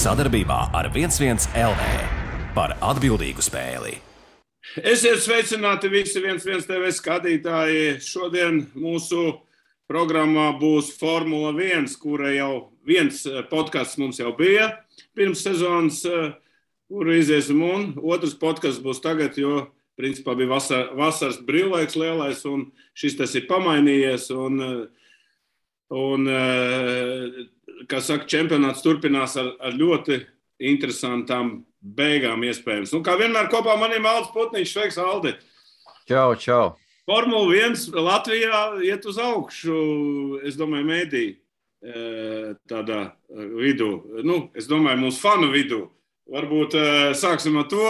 Sadarbībā ar 11 LV par atbildīgu spēli. Esiet sveicināti visi 11 TV skatītāji. Šodien mūsu programmā būs Formula 1, kura jau viens podcasts mums jau bija pirms sezonas, kuru iziesim, un otrs podcasts būs tagad, jo principā bija vasaras brīvlaiks lielais, un šis tas ir pamainījies, un kā saka, čempionāts turpinās ar ļoti interesantām beigām iespējams. Kā vienmēr kopā maniem Aldis Putniņš. Sveiks, Aldi! Čau! Formula 1 Latvijā iet uz augšu, es domāju, mēdī tādā vidū. Es domāju, mūsu fanu vidū. Varbūt sāksim ar to,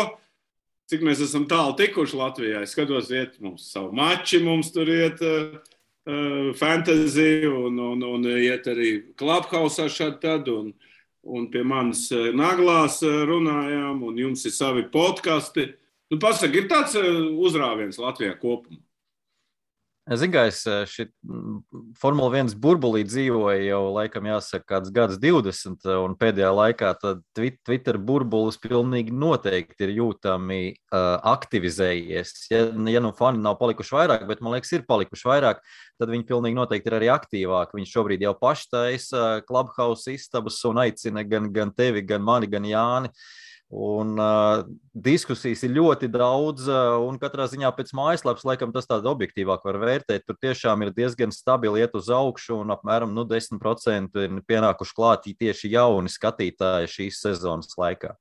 cik mēs esam tālu tikuši Latvijā. Es skatos, iet mums savu mači, mums tur iet fantasy un iet arī Clubhouse šādi tad, un pie manis naglās runājām, un jums ir savi podkasti. Pasaka, ir tāds uzrāviens Latvijā kopumā? Zinu, ka es šī Formula 1 burbulī dzīvoju jau, laikam, jāsaka, kāds gads 20, un pēdējā laikā tad Twitter burbulis pilnīgi noteikti ir jūtami aktivizējies. Ja fani nav palikuši vairāk, bet, man liekas, ir palikuši vairāk, tad viņi pilnīgi noteikti ir arī aktīvāki. Viņi šobrīd jau paši taisa Clubhouse istabas un aicina gan tevi, gan mani, gan Jāni. Un diskusijas ir ļoti daudz, un katrā ziņā pēc mājaslapas, laikam, tas tāda objektīvāk var vērtēt. Tur tiešām ir diezgan stabili iet uz augšu, un apmēram 10% ir pienākuši klāt tieši jauni skatītāji šīs sezonas laikā.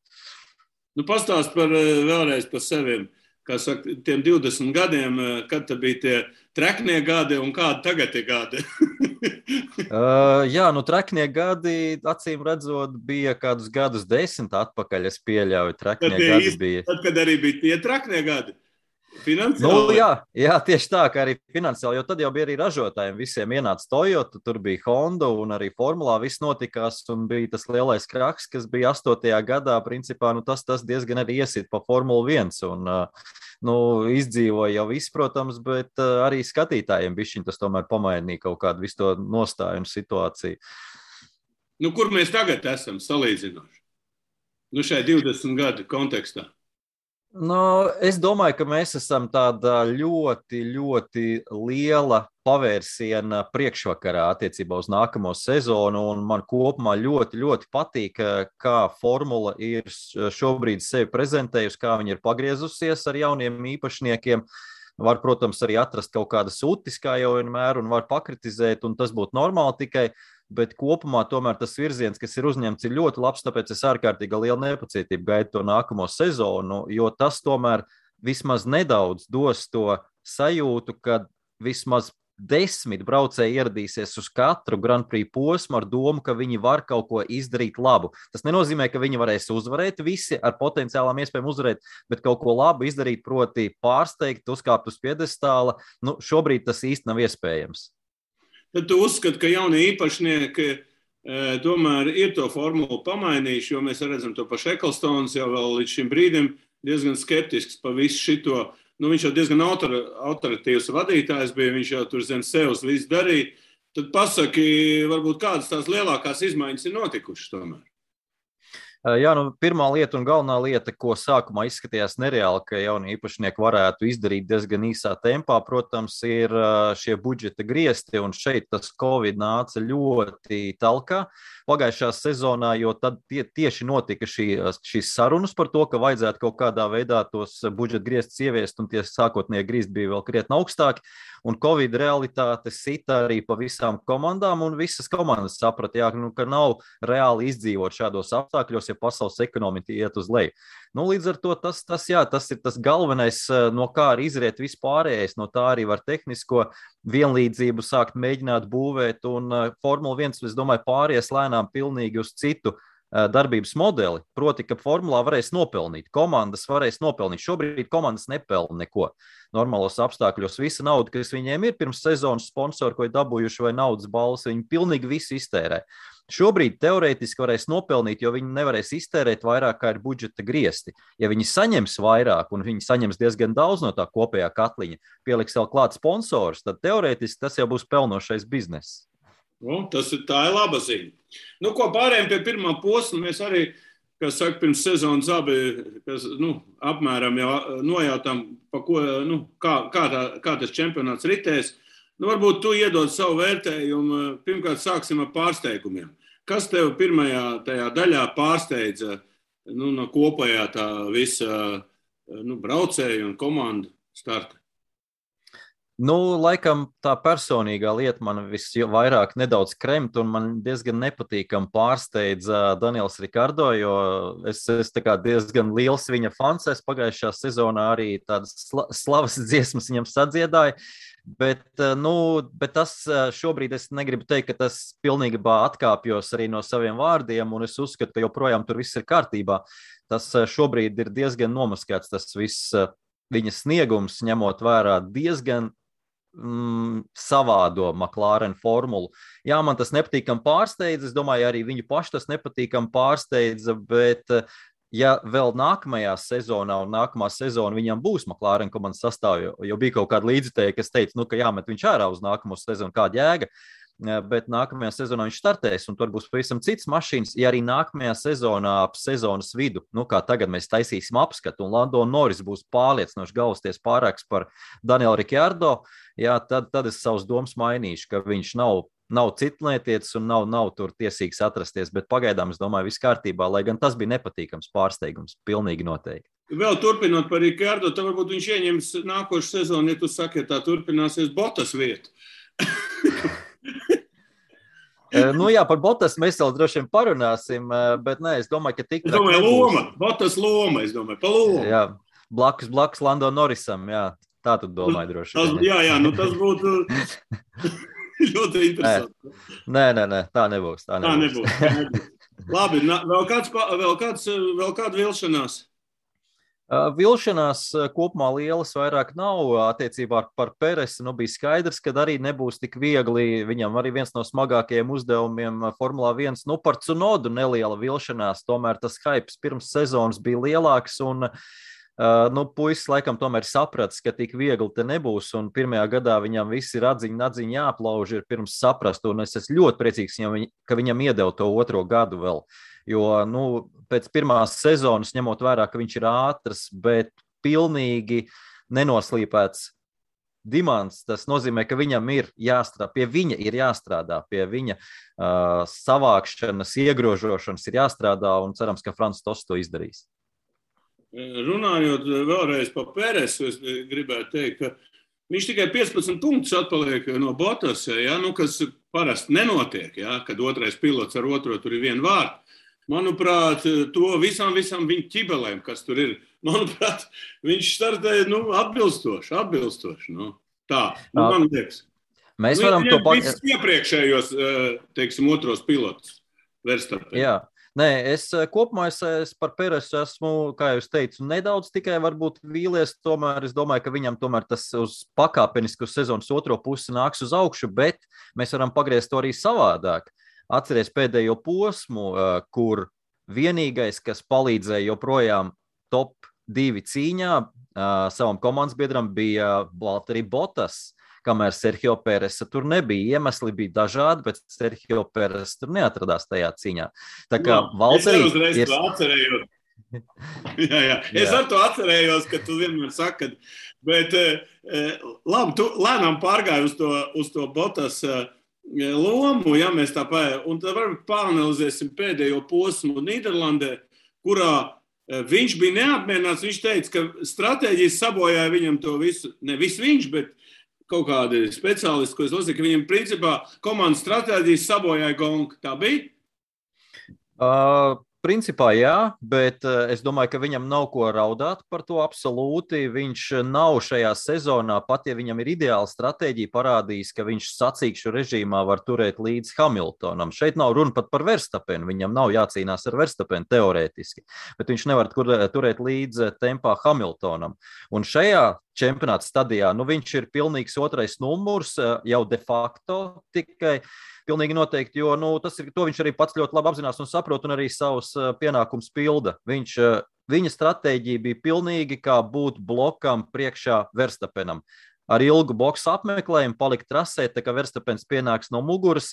Pastāst vēlreiz par seviem. Kā saka, tiem 20 gadiem, kad te bija tie treknie gadi un kādi tagad ir gadi? Treknie gadi, acīm redzot, bija kādus gadus 10 atpakaļ, es pieļauju, treknie gadi bija. Tad, kad arī bija tie treknie gadi? Finansiāli? Jā, tieši tā, ka arī finansiāli, jo tad jau bija arī ražotājiem, visiem ienāca Toyota, tur bija Honda un arī Formulā viss notikās, un bija tas lielais kraks, kas bija 8. gadā, principā, tas diezgan arī iesit pa Formulu 1, un izdzīvoja jau viss, protams, bet arī skatītājiem bišķiņ tas tomēr pamainīja kaut kādu visu to nostāju un situāciju. Kur mēs tagad esam salīdzinoši? Šai 20 gadu kontekstā. Es domāju, ka mēs esam tādā ļoti, ļoti liela pavērsiena priekšvakarā attiecībā uz nākamo sezonu, un man kopumā ļoti, ļoti patīk, kā Formula ir šobrīd sevi prezentējusi, kā viņi ir pagriezusies ar jauniem īpašniekiem. Var, protams, arī atrast kaut kādas utis, kā jau vienmēr, un var pakritizēt, un tas būtu normāli tikai, bet kopumā tomēr tas virziens, kas ir uzņemts, ir ļoti labs, tāpēc es ārkārtīgi lielu nepacietību gaidu to nākamo sezonu, jo tas tomēr vismaz nedaudz dos to sajūtu, ka vismaz 10 braucēji ieradīsies uz katru Grand Prix posmu ar domu, ka viņi var kaut ko izdarīt labu. Tas nenozīmē, ka viņi varēs uzvarēt visi ar potenciālām iespējām uzvarēt, bet kaut ko labu izdarīt, proti pārsteigt, uzkāpt uz piedestāla. Šobrīd tas īsti nav iespējams. Tad tu uzskati, ka jaunie īpašnieki tomēr ir to formulu pamainījuši, jo mēs redzam to pašu Ecclestons jau vēl līdz šim brīdim diezgan skeptisks pa visu šito. Viņš jau diezgan autoritīvs vadītājs bija, viņš jau tur zem sevs visu darīja. Tad pasaki, varbūt kādas tās lielākās izmaiņas ir notikušas tomēr? Pirmā lieta un galvenā lieta, ko sākumā izskatījās nereāli, ka jaunie īpašnieki varētu izdarīt diezgan īsā tempā, protams, ir šie budžeta griesti, un šeit tas Covid nāca ļoti talkā pagājušā sezonā, jo tad tieši notika šīs sarunas par to, ka vajadzētu kaut kādā veidā tos budžeta griestus ieviest, un tie sākotnēji griezti bija vēl krietni augstāki, un Covid realitāte sita arī pa visām komandām, un visas komandas saprata, ka nav reāli izdzīvot šādos apstākļos, ja pasaules ekonomika iet uz leju. Līdz ar to tas ir tas galvenais, no kā arī izriet vispārējais, no tā arī var tehnisko vienlīdzību sākt mēģināt būvēt, un Formula 1, es domāju, pāries lēnām pilnīgi uz citu darbības modeli, proti, ka formulā varēs nopelnīt, komandas varēs nopelnīt. Šobrīd komandas nepelna neko. Normālos apstākļos visa nauda, kas viņiem ir pirms sezonas sponsori, ko ir dabūjuši vai naudas balvas, viņi pilnīgi visu iztērē. Šobrīd teorētiski varēs nopelnīt, jo viņi nevarēs iztērēt vairāk, kā ir budžeta griesti. Ja viņi saņems vairāk, un viņi saņems diezgan daudz no tā kopējā katliņa, pieliks vēl klāt sponsors, tad teorētiski tas jau būs pelnošais bizness. Tā ir laba ziņa. Nu, ko pārējiem pie pirmā posma, mēs arī, kas saka, pirms sezonas abi, apmēram jau nojautām, pa ko, kā tas čempionāts ritēs. Varbūt tu iedod savu vērtējumu. Pirmkārt, sāksim ar pārsteigumiem. Kas tev pirmajā tajā daļā pārsteidza no kopējā tā visa braucēju un komandu starta? Laikam tā personīgā lieta man visvairāk nedaudz kremt, un man diezgan nepatīkam pārsteidza Daniels Rikardo, jo es tā kā diezgan liels viņa fans. Es pagājušā sezonā arī tādas slavas dziesmas viņam sadziedāju, bet tas šobrīd es negribu teikt, ka tas pilnībā atkāpjos arī no saviem vārdiem, un es uzskatu, ka joprojām tur viss ir kārtībā. Tas šobrīd ir diezgan nomaskēts, tas viss viņa sniegums, ņemot vērā diezgan savādo McLaren formulu. Jā, man tas nepatīkam pārsteidza, es domāju, arī viņu paši tas nepatīkam pārsteidza, bet ja vēl nākamajā sezonā un nākamā sezona viņam būs McLaren komandas sastāvā, jo bija kaut kāda līdzutēja, kas teica, ka jāmet viņš ārā uz nākamo sezonu, kāda jēga, bet nākamajā sezonā viņš startēs, un tur būs pavisam cits mašīnas. Ja arī nākamajā sezonā ap sezonas vidu, kā tagad mēs taisīsim apskatu, un Lando Norris būs pārliecinoši galvasties pārāks par Danielu Ricciardo, jā, tad es savus domas mainīšu, ka viņš nav citlietietis un nav tur tiesīgs atrasties, bet pagaidām es domāju, viss kārtībā, lai gan tas bija nepatīkams pārsteigums, pilnīgi noteikti. Vēl turpinot par Ricciardo, tad varbūt viņš ieņems nākošu sezonu, ja tu saki, ja tā turpināsies Bottas vietu. Par Bottas mēs vēl droši vien parunāsim, bet es domāju, ka tik... Es domāju, loma, Bottas loma, pa lomu. Jā, blakus Lando Norrisam, jā, tā tu domāji droši vien. Jā, tas būtu ļoti interesanti. Nē, tā nebūs. Tā nebūs. Labi, vēl kāda vilšanās? Vilšanās kopumā lielas vairāk nav attiecībā par Peresu. Bija skaidrs, ka arī nebūs tik viegli. Viņam arī viens no smagākajiem uzdevumiem Formulā 1. Par Tsunodu neliela vilšanās. Tomēr tas hypes pirms sezonas bija lielāks un puisis laikam tomēr sapratis, ka tik viegli te nebūs. Un pirmajā gadā viņam visi radziņi jāaplauž ir pirms saprast. Un es esmu ļoti priecīgs, ka viņam iedeva to otro gadu vēl. Jo, pēc pirmās sezonas, ņemot vērā, ka viņš ir ātrs, bet pilnīgi nenoslīpēts dimants, tas nozīmē, ka viņam ir jāstrādā, pie viņa savākšanas, iegrožošanas ir jāstrādā, un cerams, ka Frans Tosts to izdarīs. Runājot vēlreiz par Peresu, es gribētu teikt, ka viņš tikai 15 punktus atpaliek no Bottas, kas parasti nenotiek, kad otrais pilots ar otro tur ir viena vārta. Manuprāt, to visām viņa ķibelēm, kas tur ir, manuprāt, viņš startēja atbilstoši. Tā, man liekas. Mēs varam to visus iepriekšējos, otros pilotus Verstappen. Jā. Nē, kopumā es par Peresu esmu, kā jūs teicu, nedaudz tikai varbūt vīlies, tomēr es domāju, ka viņam tomēr tas uz pakāpenisku sezonas otro pusi nāks uz augšu, bet mēs varam pagriezt to arī savādāk. Atceries pēdējo posmu, kur vienīgais, kas palīdzēja joprojām top 2 cīņā savam komandas biedram, bija Valtteri Bottas, kamēr Sergio Peresa tur nebija. Iemesli bija dažādi, bet Sergio Peresa tur neatradās tajā cīņā. Tā kā Valtteri ir... atcerējos. Jā. Es ar to atcerējos, ka tu vienmēr saki, bet labi, tu lēnām pārgāji uz to Bottas lomu, ja mēs tā pēc, un tad varbūt pāranalizēsim pēdējo posmu Nīderlandē, kurā viņš bija neapmierināts. Viņš teica, ka stratēģijas sabojāja viņam to visu, ne visu viņš, bet kaut kādi speciālisti, ko es lasīju, ka viņam principā komandas stratēģijas sabojāja gonku. Tā bija? Principā jā, bet es domāju, ka viņam nav ko raudāt par to absolūti. Viņš nav šajā sezonā, pat ja viņam ir ideāla stratēģija, parādījis, ka viņš sacīkšu režīmā var turēt līdz Hamiltonam. Šeit nav runa pat par Verstappenu, viņam nav jācīnās ar Verstappenu teorētiski, bet viņš nevar turēt līdz tempā Hamiltonam. Un šajā čempionāta stadijā, viņš ir pilnīgs otrais numurs, jau de facto tikai. Pilnīgi noteikti, jo to viņš arī pats ļoti labi apzinās un saprot un arī savus pienākumus pilda. Viņa stratēģija bija pilnīgi kā būt blokam priekšā Verstappenam. Ar ilgu boksu apmeklējumu palikt trasē, tā kā Verstappens pienāks no muguras,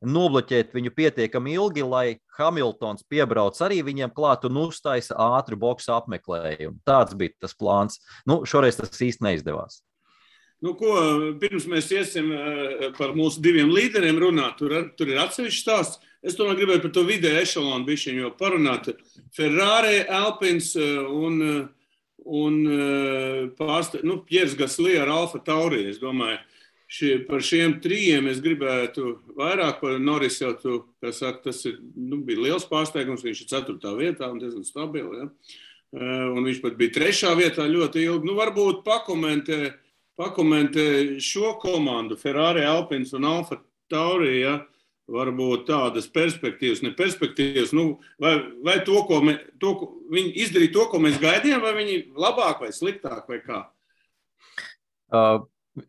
nobloķēt viņu pietiekami ilgi, lai Hamiltons piebrauc arī viņiem klāt un uztaisa ātru boksu apmeklējumu. Tāds bija tas plāns. Šoreiz tas īsti neizdevās. Pirms mēs iesim par mūsu diviem līderiem runāt, tur ir atsevišķs stāsts. Es tomēr gribēju par to vidēju ešalonu bišķiņu parunāt. Ferrari, Alpins un Piers Gasly ar Alfa Tauri, es domāju. Par šiem trijiem es gribētu vairāk par Norris jau tas bija liels pārsteigums, viņš ir 4. vietā un diezgan stabili, ja? Un viņš pat bija 3. vietā ļoti ilgi. Varbūt pakomentē šo komandu, Ferrari, Alpins un Alfa Tauri, ja? Varbūt tādas perspektīvas, ne perspektīvas, vai viņi izdarīja to, ko mēs gaidījām, vai viņi labāk vai sliktāk vai kā?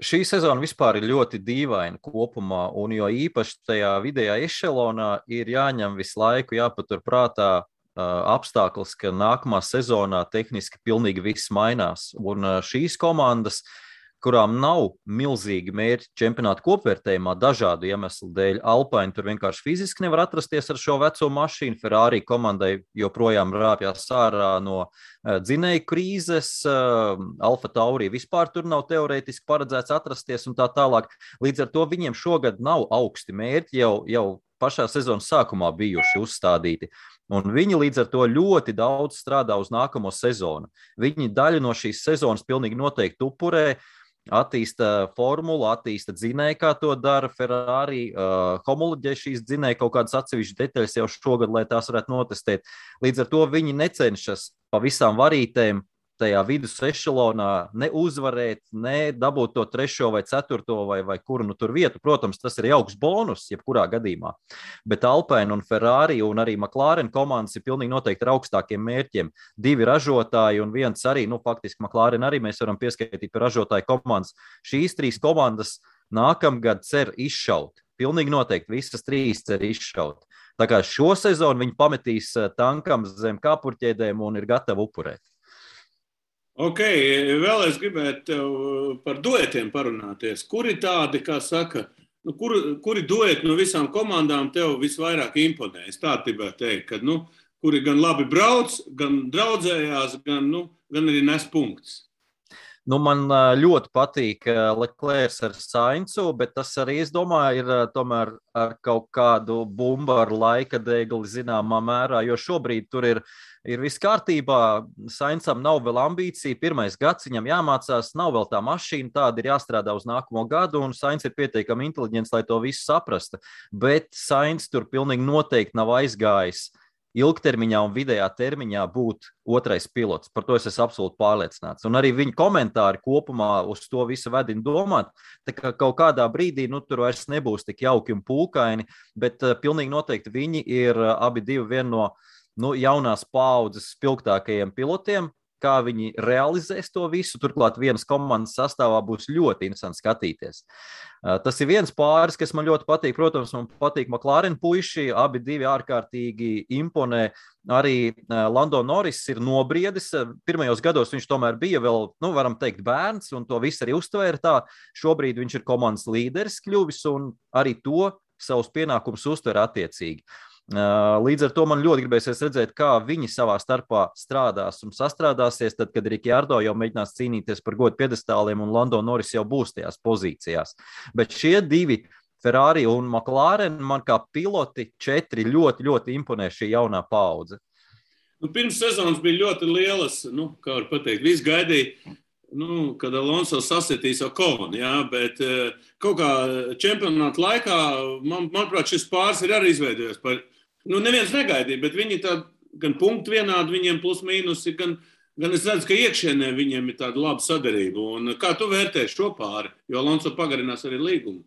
Šī sezona vispār ir ļoti dīvaina kopumā, un jo īpaši tajā vidējā ešelonā ir jāņem visu laiku, jāpatur prātā apstākļus, ka nākamā sezonā tehniski pilnīgi viss mainās. Un šīs komandas, kurām nav milzīgi mērķi čempionāta kopvērtējumā dažādu iemeslu dēļ, Alpine tur vienkārši fiziski nevar atrasties ar šo veco mašīnu, Ferrari komandai joprojām rāpjās ārā no dzinēju krīzes, Alfa Tauri vispār tur nav teorētiski paredzēts atrasties un tā tālāk. Līdz ar to viņiem šogad nav augsti mērķi, jau pašā sezonas sākumā bijuši uzstādīti. Un viņi līdz ar to ļoti daudz strādā uz nākamo sezonu. Viņi daļu no šīs sezonas pilnīgi noteikti upurē, attīsta formulu, attīsta dzinēju, kā to dara Ferrari, homoloģē šīs dzinēju kaut kādas atsevišķas detaļas jau šogad, lai tās varētu notestēt. Līdz ar to viņi necenšas pa visām varītēm tajā vidus ešelonā ne uzvarēt, ne dabūt to 3. vai 4. vai kuru tur vietu. Protams, tas ir jauks bonus, jebkurā gadījumā. Bet Alpine un Ferrari un arī McLaren komandas ir pilnīgi noteikti ar augstākiem mērķiem. 2 ražotāji un viens arī, faktiski McLaren arī mēs varam pieskaitīt par ražotāju komandas. Šīs 3 komandas nākamgad cer izšaut. Pilnīgi noteikti visas 3 cer izšaut. Tā kā šo sezonu viņi pametīs tankam zem kāpurķēdēm un ir gatavi upurēt. Ok, vēl es gribētu tev par duetiem parunāties. Kuri tādi, kā saka, kuri dueti no visām komandām tev visvairāk imponē? Es tā gribētu teikt, ka, kuri gan labi brauc, gan draudzējās, gan arī nes punktus. Man ļoti patīk Leclerc ar Sainzu, bet tas arī, es domāju, ir tomēr ar kaut kādu bumbu ar laika degli zināmā mērā, jo šobrīd tur ir viss kārtībā. Sainzam nav vēl ambīcija, 1. gads viņam jāmācās, nav vēl tā mašīna, tāda ir jāstrādā uz nākamo gadu, un Sainz ir pietiekami inteliģents, lai to visu saprasta. Bet Sainz tur pilnīgi noteikti nav aizgājis ilgtermiņā un vidējā termiņā būt 2. pilots. Par to es esmu absolūti pārliecināts. Un arī viņa komentāri kopumā uz to visu vedina domāt, tā kā kaut kādā brīdī tur vairs nebūs tik jauki un pūkaini, bet pilnīgi noteikti viņi ir abi divi viena no jaunās paaudzes spilgtākajiem pilotiem. Kā viņi realizēs to visu, turklāt vienas komandas sastāvā būs ļoti interesanti skatīties. Tas ir viens pāris, kas man ļoti patīk. Protams, man patīk McLaren puiši, abi divi ārkārtīgi imponē. Arī Lando Norris ir nobriedis. Pirmajos gados viņš tomēr bija vēl, varam teikt, bērns, un to visu arī uztvēra tā. Šobrīd viņš ir komandas līderis kļuvis, un arī to savus pienākumus uztver attiecīgi. Līdz ar to man ļoti gribēsies redzēt, kā viņi savā starpā strādās un sastrādāsies, tad, kad Ricciardo jau mēģinās cīnīties par godu piedestāliem un Lando Norris jau būs tajās pozīcijās. Bet šie 2, Ferrari un McLaren, man kā piloti 4 ļoti, ļoti imponē šī jaunā paudze. Pirms sezonas bija ļoti lielas, kā var pateikt, viss gaidīja, kad Alonso sasitīs Oconu, jā, bet kaut kā čempionāta laikā, manuprāt, šis pāris ir arī izveidojies par, neviens negaidīja, bet viņi tā gan punktu vienādi, viņiem plus mīnusi, gan es redzu, ka iekšienē viņiem ir tāda laba sadarība. Un kā tu vērtē šo pāri? Jo Alonso pagarinās arī līgumu.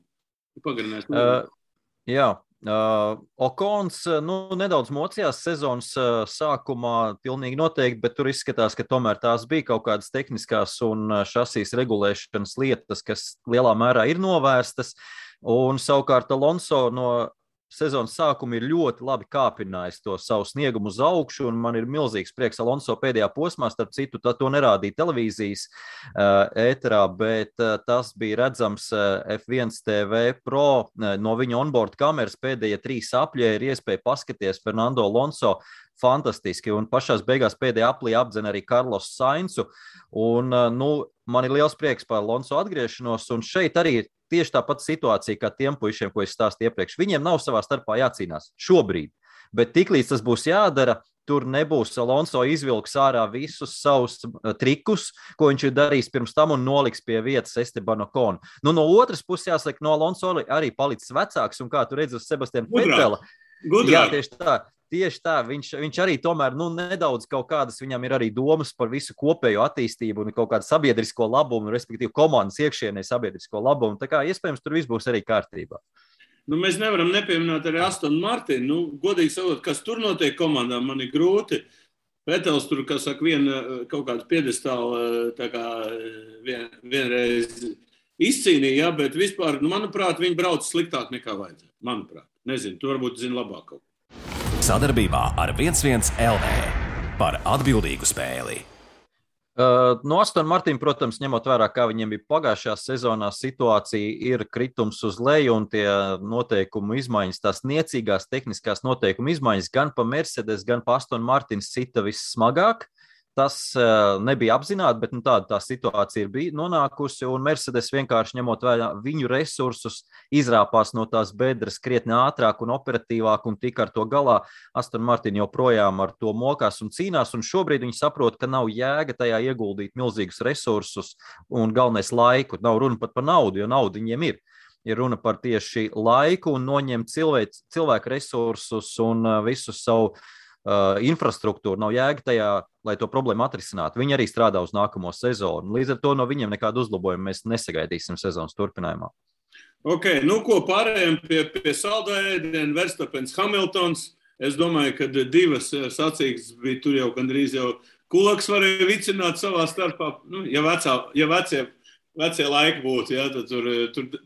Jā. Okons nedaudz mocījās sezonas sākumā pilnīgi noteikti, bet tur izskatās, ka tomēr tās bija kaut kādas tehniskās un šasīs regulēšanas lietas, kas lielā mērā ir novērstas. Un savukārt Alonso no sezonas sākumu ir ļoti labi kāpinājis to savu sniegumu uz augšu, un man ir milzīgs prieks Alonso pēdējā posmā, starp citu, to nerādīja televīzijas ēterā, bet tas bija redzams F1 TV Pro no viņa onboard kameras pēdējie 3 apļie ir iespēja paskaties Fernando Alonso fantastiski, un pašās beigās pēdējā aplī apdzena arī Carlos Sainzu, un, man ir liels prieks par Alonso atgriešanos, un šeit arī ir tieši tāpat situācija kā tiem puišiem, ko es stāstīju iepriekš. Viņiem nav savā starpā jācīnās šobrīd, bet tiklīdz tas būs jādara, tur nebūs Alonso izvilks ārā visus savus trikus, ko viņš ir darījis pirms tam un noliks pie vietas Esteban Ocon. No otras puses jāsaka, no Alonso arī palicis vecāks, un kā tu redzi uz Sebastiana Vetela. Jā, tieši tā, viņš arī tomēr nedaudz kaut kādas, viņam ir arī domas par visu kopējo attīstību un kaut kādu sabiedrisko labumu, respektīvi komandas iekšienē sabiedrisko labumu. Tā kā iespējams tur viss būs arī kārtībā. Mēs nevaram nepieminēt arī Aston Martin. Godīgi sakot, kas tur notiek komandā, man ir grūti. Vetels tur, kā saka, kaut kādu piedestālu tā kā vienreiz izcīnīja, bet vispār, manuprāt, viņi brauc sliktāk nekā vajadzētu. Manuprāt. Nezinu, tu varbūt zini labāk kaut ko. Sadarbībā ar 11 LV par atbildīgu spēli. No Aston Martin, protams, ņemot vērā, kā viņiem bija pagājušajā sezonā, situācija ir kritums uz leju un tie noteikumu izmaiņas, tās niecīgās tehniskās noteikumu izmaiņas gan pa Mercedes, gan pa Aston Martin sita vissmagāk. Tas nebija apzināti, bet tāda tā situācija ir nonākusi, un Mercedes vienkārši ņemot vērā viņu resursus, izrāpās no tās bedres krietni ātrāk un operatīvāk, un tika ar to galā. Aston Martin joprojām ar to mokās un cīnās, un šobrīd viņi saprot, ka nav jēga tajā ieguldīt milzīgus resursus un galvenais laiku. Nav runa pat par naudu, jo naudu viņiem ir. Ir runa par tieši laiku un noņemt cilvēku resursus un visu savu infrastruktūru. Nav jēga tajā, lai to problēmu atrisinātu. Viņi arī strādā uz nākamo sezonu. Līdz ar to no viņiem nekādu uzlabojumu mēs nesagaidīsim sezonas turpinājumā. Ok, ko pārējām pie saldā ēdiena, Verstappens, Hamiltons. Es domāju, ka 2 sacīkstes bija tur jau gandrīz jau kulaks varēja vicināt savā starpā. Ja vecie laiki būtu, ja, tad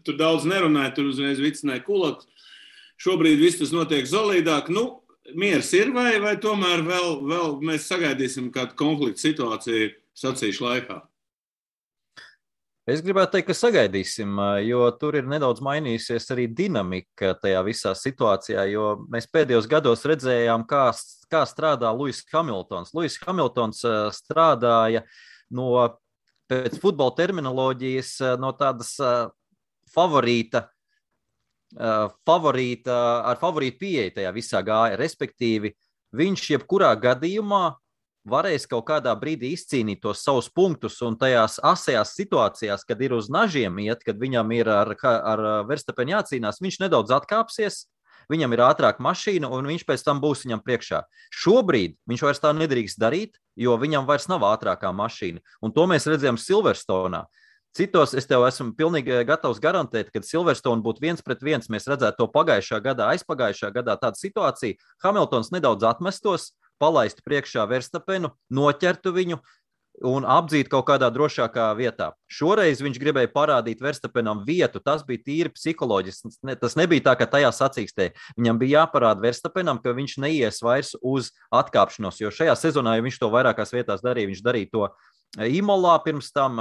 tur daudz nerunāja, tur uzreiz vicināja kulaks. Šobrīd viss tas notiek solīdāk. Miers ir vai tomēr vēl mēs sagaidīsim kādu konfliktu situāciju sacīšu laikā? Es gribētu teikt, ka sagaidīsim, jo tur ir nedaudz mainījusies arī dinamika tajā visā situācijā, jo mēs pēdējos gados redzējām, kā strādā Lewis Hamiltons. Lewis Hamiltons strādāja pēc futbola terminoloģijas no tādas favorītu pieeja tajā visā gāja, respektīvi viņš jebkurā gadījumā varēs kaut kādā brīdī izcīnīt tos savus punktus un tajās asajās situācijās, kad ir uz nažiem iet, kad viņam ir ar Verstappenu jācīnās, viņš nedaudz atkāpsies, viņam ir ātrāka mašīna un viņš pēc tam būs viņam priekšā. Šobrīd viņš vairs tā nedrīkst darīt, jo viņam vairs nav ātrākā mašīna, un to mēs redzējām Silverstone'ā. Citos es tev esmu pilnīgi gatavs garantēt, kad Silverstone būtu 1-1, mēs redzētu to pagājušā gadā, aizpagājušā gadā tādu situāciju. Hamiltons nedaudz atmestos, palaistu priekšā Verstappenu, noķertu viņu un apdzītu kaut kādā drošākā vietā. Šoreiz viņš gribēja parādīt Verstappenam vietu, tas bija tīri psiholoģiski. Tas nebija tā, ka tajā sacīkstē. Viņam bija jāparāda Verstappenam, ka viņš neies vairs uz atkāpšanos, jo šajā sezonā, ja viņš to vairākās vietās darīja, viņš darīja to Imolā pirms tam,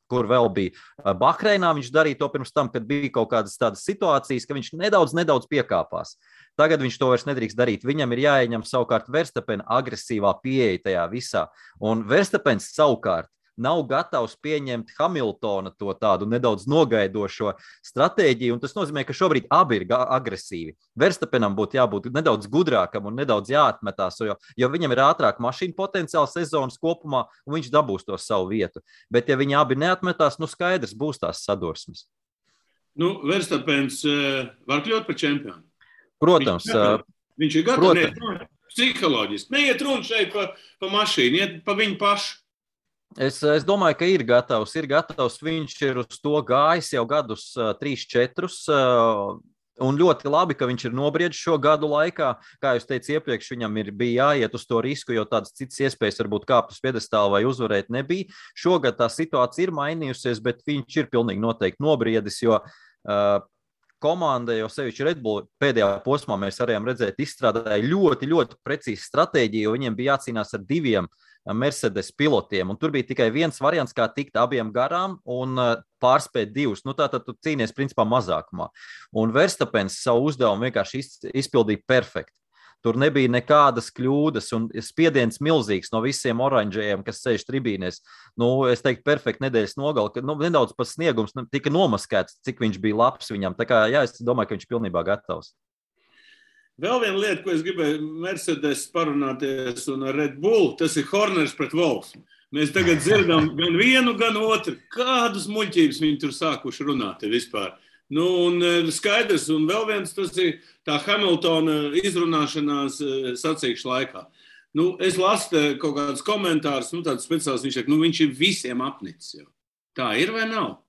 kur vēl bija Bahreinā, viņš darīja to pirms tam, kad bija kaut kādas tādas situācijas, ka viņš nedaudz piekāpās. Tagad viņš to vairs nedrīkst darīt. Viņam ir jāieņem savukārt Verstappena agresīvā pieeja tajā visā. Un Verstappens savukārt nav gatavs pieņemt Hamiltona to tādu nedaudz nogaidošo stratēģiju, un tas nozīmē, ka šobrīd abi ir agresīvi. Verstappenam būtu jābūt nedaudz gudrākam un nedaudz jāatmetās, jo viņam ir ātrāk mašīna potenciāls sezonas kopumā, un viņš dabūs to savu vietu. Bet ja viņi abi neatmetās, skaidrs būs tās sadursmes. Verstappens var kļūt par čempionu. Protams. Viņš ir gatavs psiholoģiski. Neiet runa šeit pa mašīnu, iet pa viņu pašu. Es domāju, ka ir gatavs. Viņš ir uz to gājis jau gadus 3-4. Un ļoti labi, ka viņš ir nobriedis šo gadu laikā. Kā jūs teicu iepriekš, viņam bija jāiet uz to risku, jo tādas citas iespējas varbūt kāpt uz piedestālu vai uzvarēt nebija. Šogad tā situācija ir mainījusies, bet viņš ir pilnīgi noteikti nobriedis, jo komanda, jo sevišķi Red Bull pēdējā posmā mēs varējām redzēt, izstrādāja ļoti, ļoti precīzi stratēģiju, jo viņiem bija jācīnās ar 2 Mercedes pilotiem, un tur bija tikai viens variants, kā tikt abiem garām un pārspēt 2. Nu, tātad tu cīnies principā mazākumā. Un Verstapens savu uzdevumu vienkārši izpildīja perfekti. Tur nebija nekādas kļūdas, un spiediens milzīgs no visiem oranžējiem, kas sēž tribīnēs. Nu, es teiktu, perfekti nedēļas nogali, ka nedaudz pat sniegums tika nomaskēts, cik viņš bija labs viņam. Tā kā, jā, es domāju, ka viņš ir pilnībā gatavs. Vēl viena lieta, ko es gribēju Mercedes parunāties un ar Red Bull, tas ir Horners pret Wolfs. Mēs tagad dzirdam gan vienu, gan otru. Kādas muļķības viņi tur sākuši runāt vispār? Nu, un skaidrs, un vēl viens, tas ir tā Hamiltona izrunāšanās sacīkšu laikā. Nu, es lasu kaut kādus komentārus, nu, tāds speciāls, viņš saka, nu, viņš ir visiem apnicis jau. Tā ir vai nav?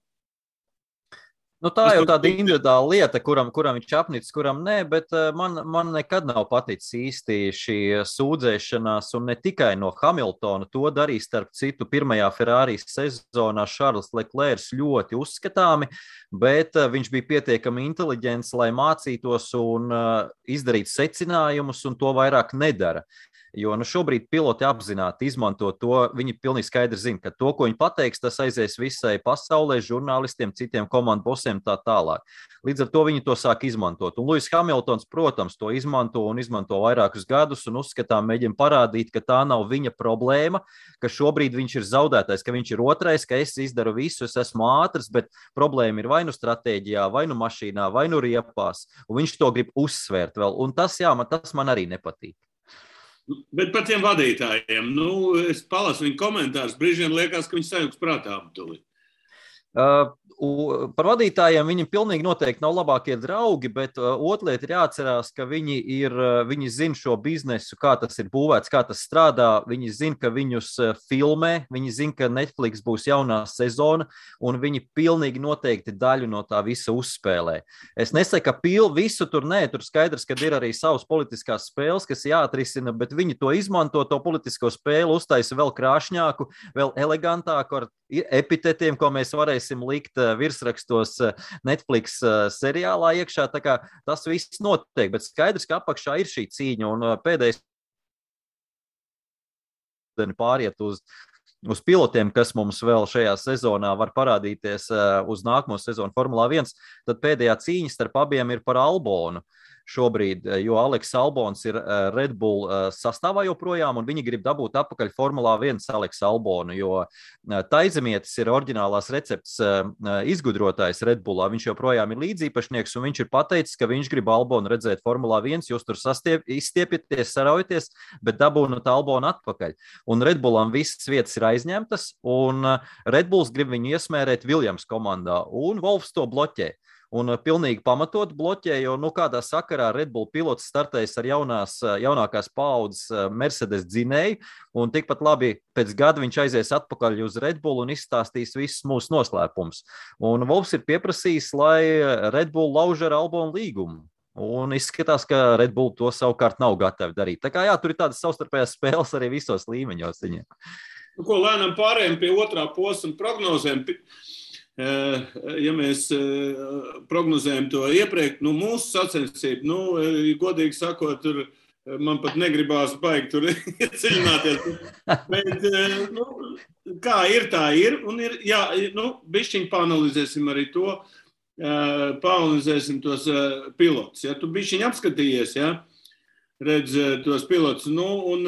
Nu, tā jau tāda individuāla lieta, kuram viņš apnicis, kuram nē, bet man nekad nav paticis īsti šī sūdzēšanās, un ne tikai no Hamiltona. To darīja starp citu pirmajā Ferrari sezonā Charles Leclerc ļoti uzskatāmi, bet viņš bija pietiekami inteliģents, lai mācītos un izdarītu secinājumus, un to vairāk nedara. Jo šobrīd piloti apzināti izmanto to, viņi pilnīgi skaidri zina, ka to, ko viņi pateiks, tas aizies visai pasaulē, žurnālistiem, citiem komandu bosiem tā tālāk. Līdz ar to viņi to sāk izmantot. Un Lewis Hamiltons, protams, to izmanto un izmanto vairākus gadus un uzskatām mēģina parādīt, ka tā nav viņa problēma, ka šobrīd viņš ir zaudētais, ka viņš ir otrais, ka es izdaru visu, es esmu ātrs, bet problēma ir vai nu stratēģijā, vai nu mašīnā, vai nu riepās, un viņš to grib uzsvērt vēl. Un tas, jā, tas man arī nepatīk. Bet par tiem vadītājiem, nu, es palasu viņu komentārus, brīžiem liekas, ka viņi sajūgs prātā aptuli. Par vadītājiem viņiem pilnīgi noteikti nav labākie draugi, bet otra lieta ir jāatcerās, ka viņi zina šo biznesu, kā tas ir būvēts, kā tas strādā. Viņi zina, ka viņus filmē, viņi zina, ka Netflix būs jaunā sezona, un viņi pilnīgi noteikti daļu no tā visa uzspēlē. Es nesaku, ka visu tur nē, tur skaidrs, ka ir arī savas politiskās spēles, kas jāatrisina, bet viņi to izmanto, to politisko spēli, uztaisa vēl krāšņāku, vēl elegantāku ar epitetiem, ko mēs varēsim likt virsrakstos Netflix seriālā iekšā. Tā kā tas viss notiek, bet skaidrs, ka apakšā ir šī cīņa, un pēdējais pāriet uz pilotiem, kas mums vēl šajā sezonā var parādīties uz nākamo sezonu Formulā 1, tad pēdējā cīņa starp abiem ir par Albonu šobrīd, jo Aleks Albons ir Red Bull sastāvā joprojām, un viņi grib dabūt atpakaļ Formulā 1 Aleks Albonu, jo Taizemietis ir oriģinālās recepts izgudrotājs Red Bullā, viņš joprojām ir līdzīpašnieks, un viņš ir pateicis, ka viņš grib Albonu redzēt Formulā 1, jūs tur izstiepieties, saraujaties, bet dabūnat Albonu atpakaļ. Un Red Bullam visas vietas ir aizņemtas, un Red Bulls grib viņu iesmērēt Williams komandā, un Wolfs to bloķē. Un pilnīgi pamatot bloķē, jo kādā sakarā Red Bull pilots startējas ar jaunākās paaudzes Mercedes dzinēju, un tikpat labi pēc gada viņš aizies atpakaļ uz Red Bull un izstāstīs visus mūsu noslēpumus. Un Wolfs ir pieprasījis, lai Red Bull lauž ar Albonu līgumu. Un izskatās, ka Red Bull to savukārt nav gatavi darīt. Tā kā jā, tur ir tādas savstarpējās spēles arī visos līmeņos. Nu, ko lēnām pārējām pie otrā posma prognozēm. Ja mēs prognozējam to iepriekš, mūsu sacensību, godīgi sakot, tur man pat negribās baigi tur iedziļināties. Bet, kā ir, tā ir. Un ir, jā, bišķiņ paanalizēsim arī to, paanalizēsim tos pilotus. Ja tu bišķiņ apskatījies, ja, redz tos pilotus, un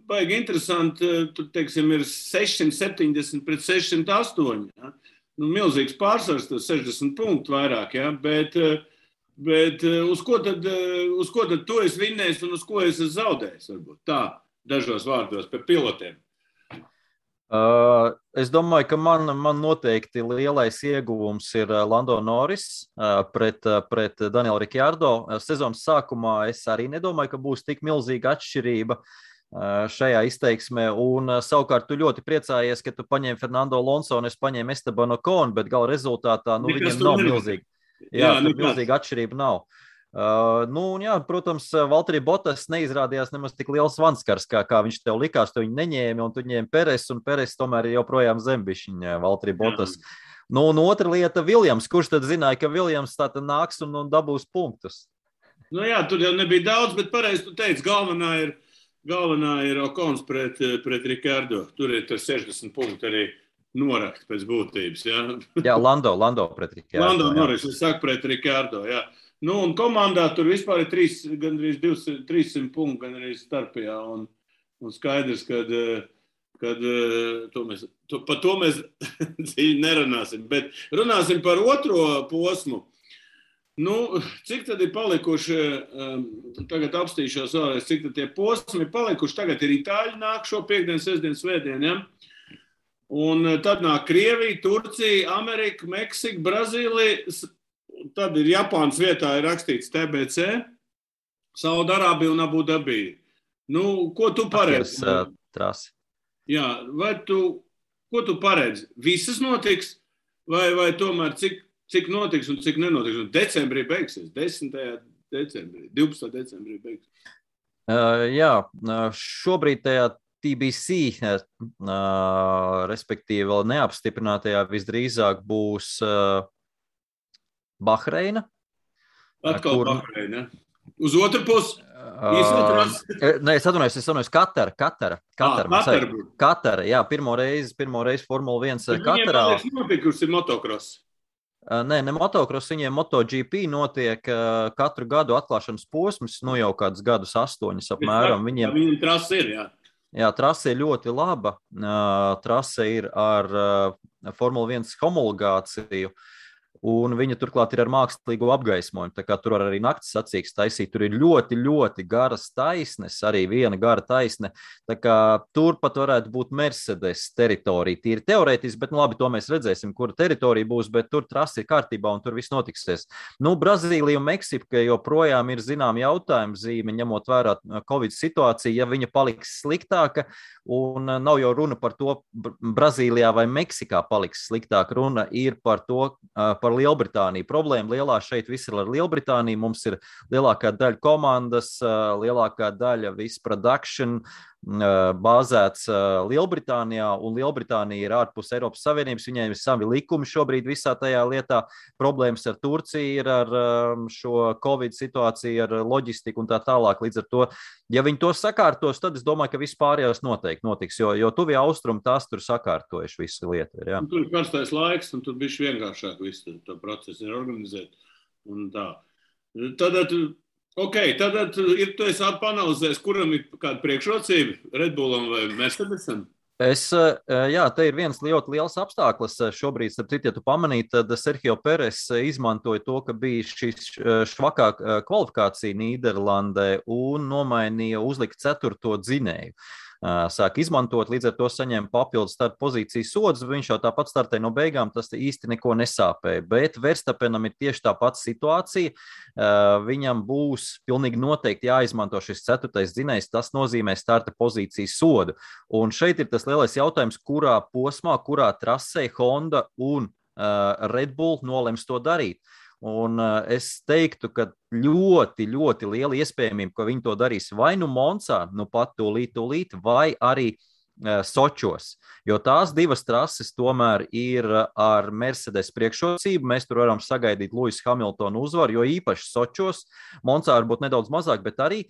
baigi interesanti, tur, teiksim, ir 670 pret 608, ja. Milzīgs pārsvars, 60 punktu vairāk, ja? Bet uz ko tad tu esi vinnējis un uz ko esi zaudējis? Varbūt tā, dažos vārdos par pilotiem. Es domāju, ka man noteikti lielais ieguvums ir Lando Norris pret Danielu Ricciardo. Sezonas sākumā es arī nedomāju, ka būs tik milzīga atšķirība šajā izteiksmē, un savukārt tu ļoti priecājies, ka tu paņēmi Fernando Alonso un es paņēmu Esteban Ocon, bet gala rezultātā viņiem nav milzīga. Jā, milzīga atšķirība nav. Jā, protams, Valtteri Bottas neizrādījās nemaz tik liels vanskars, kā viņš tev likās, tu viņu neņēmi, un tu ņēmi Peres, un Peres tomēr ir joprojām zembišķiņa Valtteri Bottas. Nu, un otra lieta - Viljams. Kurš tad zināja, ka Viljams tā tad nāks un dabūs punktus? Nu jā, tur jau nebija daudz, bet pareizi tu teici, galvenā ir Okons pret Rikardo. Tur ir tas 60 punkti arī norakt pēc būtības. Ja? Jā, Lando pret Rikardo. Lando Norris, es saku pret Rikardo, jā. Nu, un komandā tur vispār ir gandrīz 300 punkti, gandrīz starpajā. Un skaidrs, kad par to mēs dziļi nerunāsim. Bet runāsim par otro posmu. Nu, cik tad ir palikuši, tagad apstīšos vēlreiz, cik tad tie posmi ir palikuši. Tagad ir Itāļi nāk šo piekdienu, sestdienu, svētdienu, ja? Un tad nāk Krievija, Turcija, Amerika, Meksika, Brazīlija. Tad ir Japānas vietā ir rakstīts TBC, Saudarābija un Abu Dabija. Nu, ko tu paredzi? Trasi. Jā, ko tu paredzi? Visas notiks? Vai tomēr cik notiks un cik nenotiks? Un decembrī beigsies, 10. decembrī, 12. decembrī beigsies. Jā, šobrīd tajā TBC, respektīvi vēl neapstiprinātajā visdrīzāk būs Bahreina. Atkal Bahreina. Uz otru pusi. Nē, es atvainojos, Katara. Katara, jā, pirmo reizi Formula 1 Katarā. Viņiem nopikusi motocross. Nē, ne motocross, viņiem MotoGP notiek katru gadu atklāšanas posms, nu jau kādus gadus 8 apmēram. Viņiem trase ir, jā. Jā, trase ir ļoti laba. Trase ir ar Formula 1 homologāciju. Un viņa turklāt ir ar mākslīgo apgaismojumu. Tā kā tur arī nakts sacīks taisīt. Tur ir ļoti, ļoti garas taisnes, arī viena gara taisne. Tā kā tur pat varētu būt Mercedes teritorija. Tīri teorētiski, bet nu labi, to mēs redzēsim, kura teritorija būs, bet tur trasi ir kārtībā un tur viss notiksies. Nu, Brazīlija un Meksika joprojām ir zinām jautājumu zīme, ņemot vērā Covid situāciju, ja viņa paliks sliktāka, un nav jau runa par to, Brazīlijā vai Meksikā paliks sliktāk. Runa ir par to, par Lielbritāniju. Problēma lielā šeit viss ir ar Lielbritāniju. Mums ir lielākā daļa komandas, lielākā daļa viss production bāzēts Lielbritānijā, un Lielbritānija ir ārpus Eiropas Savienības. Viņiem ir savi likumi šobrīd visā tajā lietā. Problēmas ar Turciju ir ar šo Covid situāciju, ar loģistiku un tā tālāk. Līdz ar to, ja viņi to sakārtos, tad es domāju, ka viss pārējās noteikti notiks, jo tuvie austrumi tās tur sakārtojuši visu lietu. Ja. Tur ir karstais laiks, un tur bišķi vienkāršāk visu to procesu ir organizēt. Un tā. Tad ir tu esi panalizējis, kuram ir kāda priekšrocība, Red Bullam vai Mercedesam? Jā, te ir viens ļoti liels apstākļus. Šobrīd, starp citu, ja tu pamanīji, tad Sergio Perez izmantoja to, ka bija šis švakā kvalifikācija Nīderlandē un nomainīja, uzlika 4. dzinēju. Sāk izmantot, līdz ar to saņēma papildus starta pozīcijas sodus, viņš jau tāpat startēja no beigām, tas īsti neko nesāpēja, bet Verstappenam ir tieši tā pati situācija, viņam būs pilnīgi noteikti jāizmanto šis 4. dzinējs, tas nozīmē starta pozīcijas sodu, un šeit ir tas lielais jautājums, kurā posmā, kurā trasē Honda un Red Bull nolems to darīt. Un es teiktu, ka ļoti, ļoti liela iespējamība, ka viņi to darīs vai nu Monsā, nu pat tūlīt, vai arī Sočos, jo tās divas trases tomēr ir ar Mercedes priekšrocību. Mēs tur varam sagaidīt Lewisa Hamiltona uzvaru, jo īpaši Sočos, Monsā varbūt nedaudz mazāk, bet arī.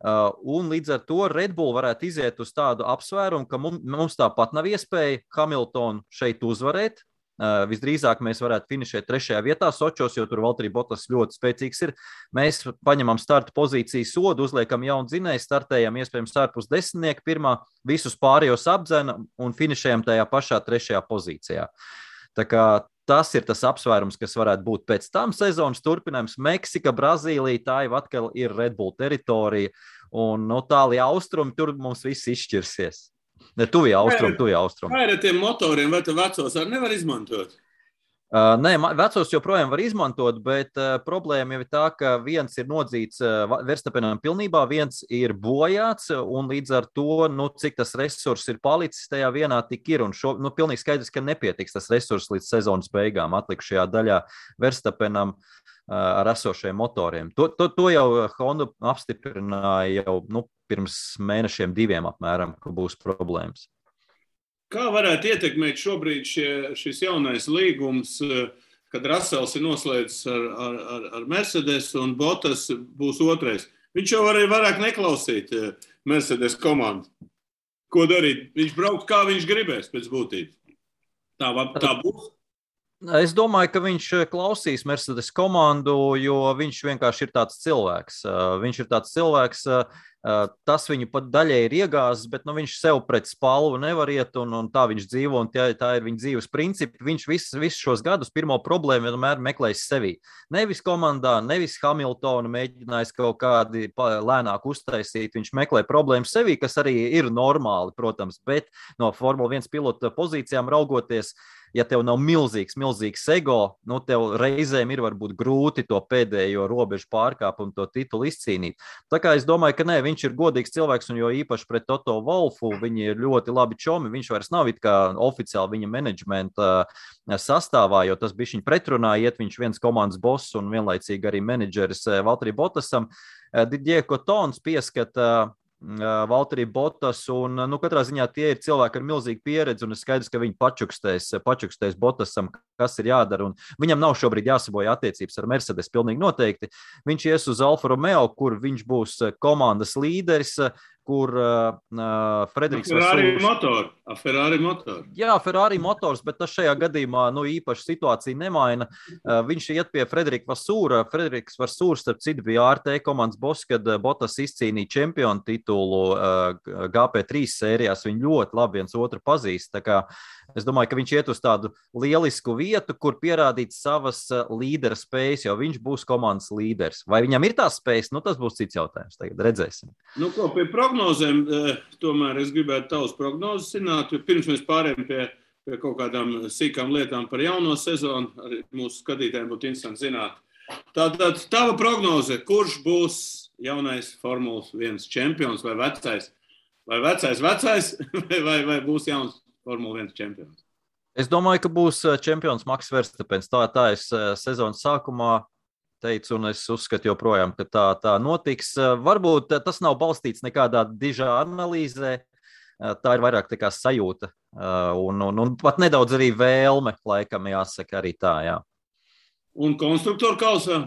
Un līdz ar to Red Bull varētu iziet uz tādu apsvērumu, ka mums tāpat nav iespēja Hamiltonu šeit uzvarēt. Visdrīzāk mēs varētu finišēt 3. vietā Sočos, jo tur Valtteri Bottas ļoti spēcīgs ir. Mēs paņemam starta pozīciju sodu, uzliekam jaunu dzinēju, startējam iespējams ārpus 10. pirmā, visus pārējos apdzena un finišējam tajā pašā 3. pozīcijā. Tā kā tas ir tas apsvērums, kas varētu būt pēc tam sezonas turpinājums. Meksika, Brazīlija, tā jau atkal ir Red Bull teritorija un no tālie austrumi, tur mums viss izšķirsies. Ne, tuvie austrumi. Kā ir ar tiem motoriem, vai tu vecos arī nevar izmantot? Nē, vecos joprojām var izmantot, bet problēma jau ir tā, ka viens ir nodzīts Verstappenam pilnībā, viens ir bojāts, un līdz ar to, cik tas resurs ir palicis tajā vienā tik ir, un pilnīgi skaidrs, ka nepietiks tas resurs līdz sezonas beigām atlikušajā daļā Verstappenam ar esošajiem motoriem. To jau Honda apstiprināja jau pirms mēnešiem 2 apmēram, ka būs problēmas. Kā varētu ietekmēt šobrīd šis jaunais līgums, kad Russells ir noslēdzis ar Mercedes un Bottas būs otrais? Viņš jau arī vairāk neklausīt Mercedes komandu. Ko darīt? Viņš brauks, kā viņš gribēs pēc būtības. Tā būs? Es domāju, ka viņš klausīs Mercedes komandu, jo viņš vienkārši ir tāds cilvēks. Tas viņu pat daļai ir iegāzis, bet viņš sev pret spalvu nevar iet, un tā viņš dzīvo, un tā ir viņa dzīves principi. Viņš visus šos gadus pirmo problēmu vienmēr meklējis sevī. Nevis komandā, nevis Hamiltonu mēģinājis kaut kādi lēnāk uztaisīt. Viņš meklē problēmu sevī, kas arī ir normāli, protams, bet no Formula 1 pilota pozīcijām raugoties, ja tev nav milzīgs ego, tev reizēm ir varbūt grūti to pēdējo robežu pārkāpt un to titulu izcīnīt. Tā kā es domāju, ka viņš ir godīgs cilvēks, un jo īpaši pret Toto Wolfu viņi ir ļoti labi čomi. Viņš vairs nav it kā oficiāli viņa menedžmenta sastāvā, jo tas bija viņa pretrunā, iet viņš viens komandas boss un vienlaicīgi arī menedžeris Valtteri Bottasam. Didier Cotons pieskata Valtteri Bottas, un katrā ziņā tie ir cilvēki ar milzīgu pieredzi, un ir skaidrs, ka viņi pačukstēs Bottasam, kas ir jādara, un viņam nav šobrīd jāsaboja attiecības ar Mercedes, pilnīgi noteikti. Viņš ies uz Alfa Romeo, kur viņš būs komandas līderis, kur Frederiks Ferrari motor. Jā, Ferrari motors, bet tas šajā gadījumā īpaši situācija nemaina. Viņš iet pie Frederika Vasūra. Frederiks Vasūrs, starp citu, bija ART komandas boss, kad Bottas izcīnīja čempionu titulu GP3 sērijās. Viņi ļoti labi viens otru pazīst. Tā kā es domāju, ka viņš iet uz tādu lielisku vietu, kur pierādīt savas līdera spējas, jo viņš būs komandas līderis. Vai viņam ir tās spējas? Tas būs cits jautājums. Tagad redzēsim. Pie prognozēm, tomēr es gribētu tavas prognozes zināt, jo pirms mēs pārējām pie kaut kādām sīkām lietām par jauno sezonu, arī mūsu skatītājiem būtu interesanti zināt. Tātad tava prognoze, kurš būs jaunais Formulas 1 čempions vai vecais? Vai vai būs jauns Formula 1 čempions? Es domāju, ka būs čempions Maks Verstapens. Tā es sezonas sākumā teicu, un es uzskatu joprojām, ka tā notiks. Varbūt tas nav balstīts nekādā dižā analīzē. Tā ir vairāk tā kā sajūta. Un pat nedaudz arī vēlme, laikam jāsaka arī tā, jā. Un konstruktoru kausā?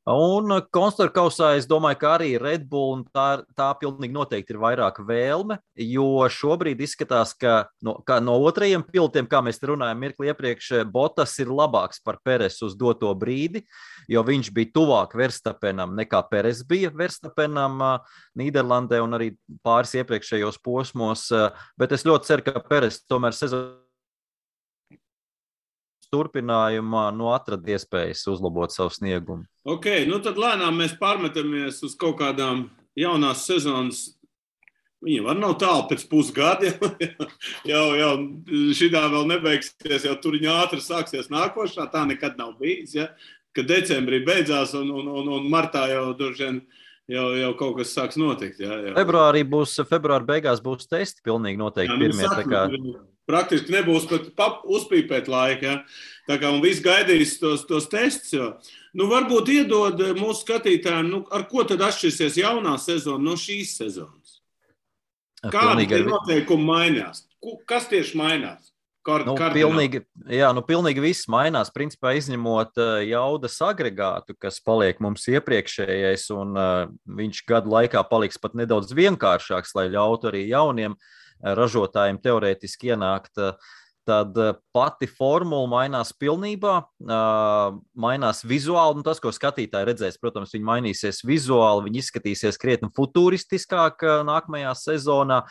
Un konstruktoru kausā es domāju, ka arī Red Bull un tā pilnīgi noteikti ir vairāk vēlme, jo šobrīd izskatās, ka no otrajiem pilotiem, kā mēs runājam mirkli iepriekš, Bottas ir labāks par Peresu uz doto brīdi, jo viņš bija tuvāk Verstapenam nekā Peres bija Verstapenam Nīderlandē un arī pāris iepriekšējos posmos, bet es ļoti ceru, ka Peres tomēr sezonu turpinājumā atrada iespējas uzlabot savu sniegumu. Ok, tad lēnām mēs pārmetamies uz kaut kādām jaunās sezonas. Viņa var nav tālu pēc pusgada, jau šitā vēl nebeigsies, jau tur viņa ātri sāksies nākošā, tā nekad nav bijis, ja? Kad decembrī beidzās un martā jau droši jau kaut kas sāks notikt. Ja? Februāra beigās būs testi pilnīgi noteikti pirmie. Praktiski nebūs pat uzpīpēt laika. Ja? Tā kā un viss gaidīs tos testus. Varbūt iedod mūsu skatītājiem, ar ko tad atšķirsies jaunā sezona no šīs sezonas? Kādi noteikumi mainās? Kas tieši mainās? Pilnīgi viss mainās, principā izņemot jaudas agregātu, kas paliek mums iepriekšējais, un viņš gadu laikā paliks pat nedaudz vienkāršāks, lai ļautu arī jauniem ražotājiem teorētiski ienākt. Tad pati formula mainās pilnībā, mainās vizuāli, tas, ko skatītāji redzēs, protams, viņi mainīsies vizuāli, viņi izskatīsies krietni futuristiskāk nākamajā sezonā,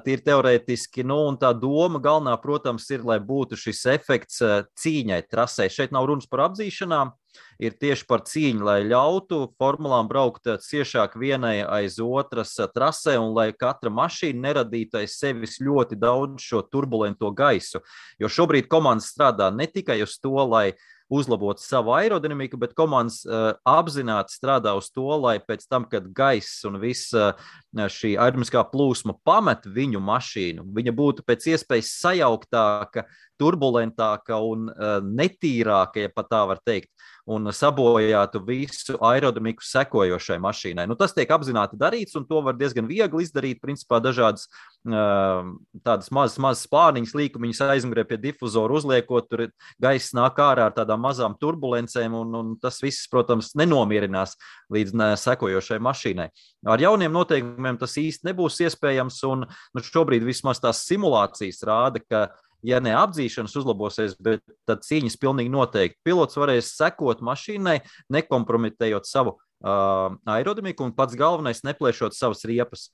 tīri teorētiski, un tā doma galvenā, protams, ir, lai būtu šis efekts cīņai trasē. Šeit nav runas par apzīšanām, ir tieši par cīņu, lai ļautu formulām braukt ciešāk vienai aiz otras trasē un lai katra mašīna neradītu aiz sevis ļoti daudz šo turbulento gaisu. Jo šobrīd komandas strādā ne tikai uz to, lai uzlabot savu aerodinamiku, bet komandas apzināti strādā uz to, lai pēc tam, kad gaiss un viss šī aerodinamiskā plūsma pamet viņu mašīnu, viņa būtu pēc iespējas sajauktāka, turbulentāka un netīrāka, ja pat tā var teikt, un sabojātu visu aerodinamiku sekojošai mašīnai. Tas tiek apzināti darīts, un to var diezgan viegli izdarīt, principā dažādas tādas mazas spārniņas, līkumiņas aizmugurē pie difuzoru uzliekot, tur gaiss nāk ārā ar tādām mazām turbulencēm, un tas viss, protams, nenomierinās līdz sekojošai mašīnai. Ar jauniem noteikumiem tas īsti nebūs iespējams, un šobrīd vismaz tās simulācijas rāda, ka ja ne apdzīšanas uzlabosies, bet tad cīņas pilnīgi noteikti. Pilots varēs sekot mašīnai, nekompromitējot savu aerodinamiku un pats galvenais neplēšot savas riepas.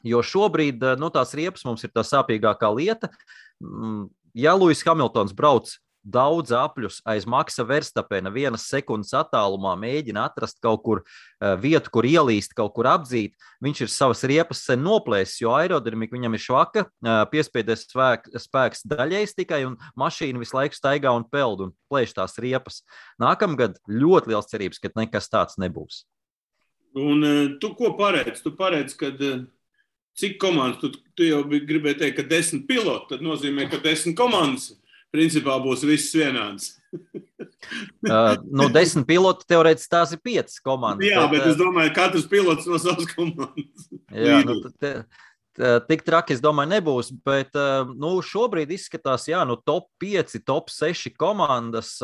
Jo šobrīd tās riepas mums ir tā sāpīgākā lieta. Ja Lewis Hamiltons brauc daudz apļus aiz Maksa Verstapena 1 sekundes attālumā, mēģina atrast kaut kur vietu, kur ielīst, kaut kur apdzīt, viņš ir savas riepas sen noplēsis, jo aerodinamika viņam ir švaka, piespiedes spēks daļais tikai, un mašīna visu laiku staigā un peld un plēš tās riepas. Nākamgad ļoti liels cerības, ka nekas tāds nebūs. Un tu ko paredz? Tu paredz, kad cik komandas? Tu jau gribēji teikt, ka 10 piloti, tad nozīmē, ka 10 komandas principā būs viss vienāds. 10 piloti teorētiski tās ir 5 komandas. Jā, bet es domāju, katrs pilots no savas komandas. Jā, tik traki, es domāju, nebūs, bet šobrīd izskatās, top 5, top 6 komandas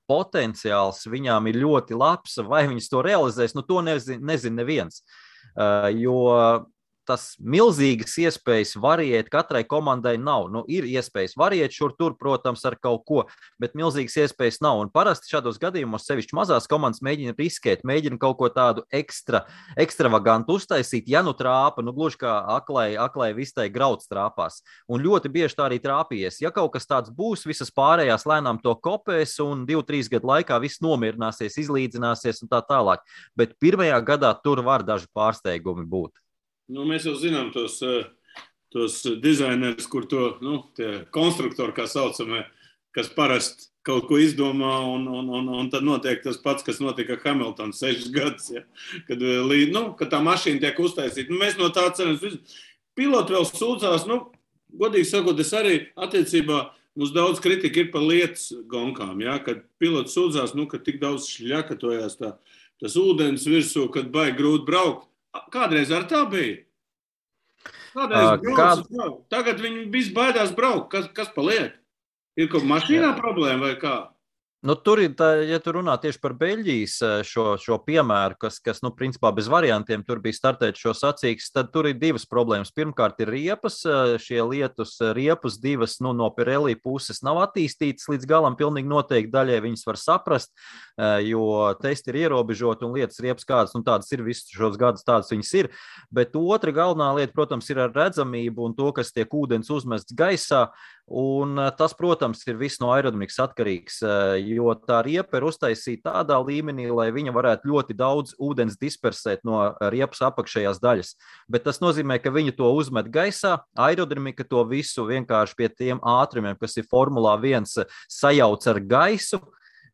potenciāls viņām ir ļoti labs, vai viņas to realizēs, to nezin neviens, jo tas milzīgas iespējas variēt katrai komandai nav. Ir iespējas variēt šur tur, protams, ar kaut ko, bet milzīgas iespējas nav. Un parasti šādos gadījumos, sevišķi mazās komandas, mēģina riskēt, mēģina kaut ko tādu ekstravagantu uztaisīt, ja trāpa, gluži kā aklai vistai grauds trāpās. Un ļoti bieži tā arī trāpījies. Ja kaut kas tāds būs, visas pārējās lēnām to kopēs un 2-3 gadu laikā viss nomierināsies, izlīdzināsies un tā tālāk. Bet pirmajā gadā tur var daži pārsteigumi būt. Mēs jau zinām tos dizainerus, kur tie konstruktori, kā saucamie, kas parasti kaut ko izdomā, un tad notiek tas pats, kas notika Hamilton 6 gadus, ja? Kad tā mašīna tiek uztaisīta. Mēs no tā ceram. Piloti vēl sūdzās, godīgi sakot, es arī attiecībā, mums daudz kritika ir par lietas gonkām, ja? Kad piloti sūdzās, ka tik daudz šļakatojās tas ūdens virsū, kad baigi grūti braukt. Kādreiz ar tā bija? Tagad viņi visi baidās braukt. Kas paliek? Ir kaut mašīnā problēma vai kā? Tur ir, ja tu runā tieši par Beļģijas šo piemēru, kas principā bez variantiem tur bija startēt šo sacīkstes, tad tur ir divas problēmas. Pirmkārt ir riepas, šie lietus riepas divas no Pirelli puses nav attīstītas līdz galam pilnīgi noteikti daļai viņas var saprast, jo testi ir ierobežoti un lietas riepas kādas, tādas ir visus šos gadus tādas viņas ir, bet otra galvenā lieta, protams, ir ar redzamību un to, kas tiek ūdens uzmests gaisā, un tas, protams, ir viss no aerodinamikas atkarīgs, jo tā riepa ir uztaisīta tādā līmenī, lai viņa varētu ļoti daudz ūdens dispersēt no riepas apakšējās daļas. Bet tas nozīmē, ka viņi to uzmet gaisā, aerodinamika to visu vienkārši pie tiem ātrumiem, kas ir Formulā 1, sajauc ar gaisu,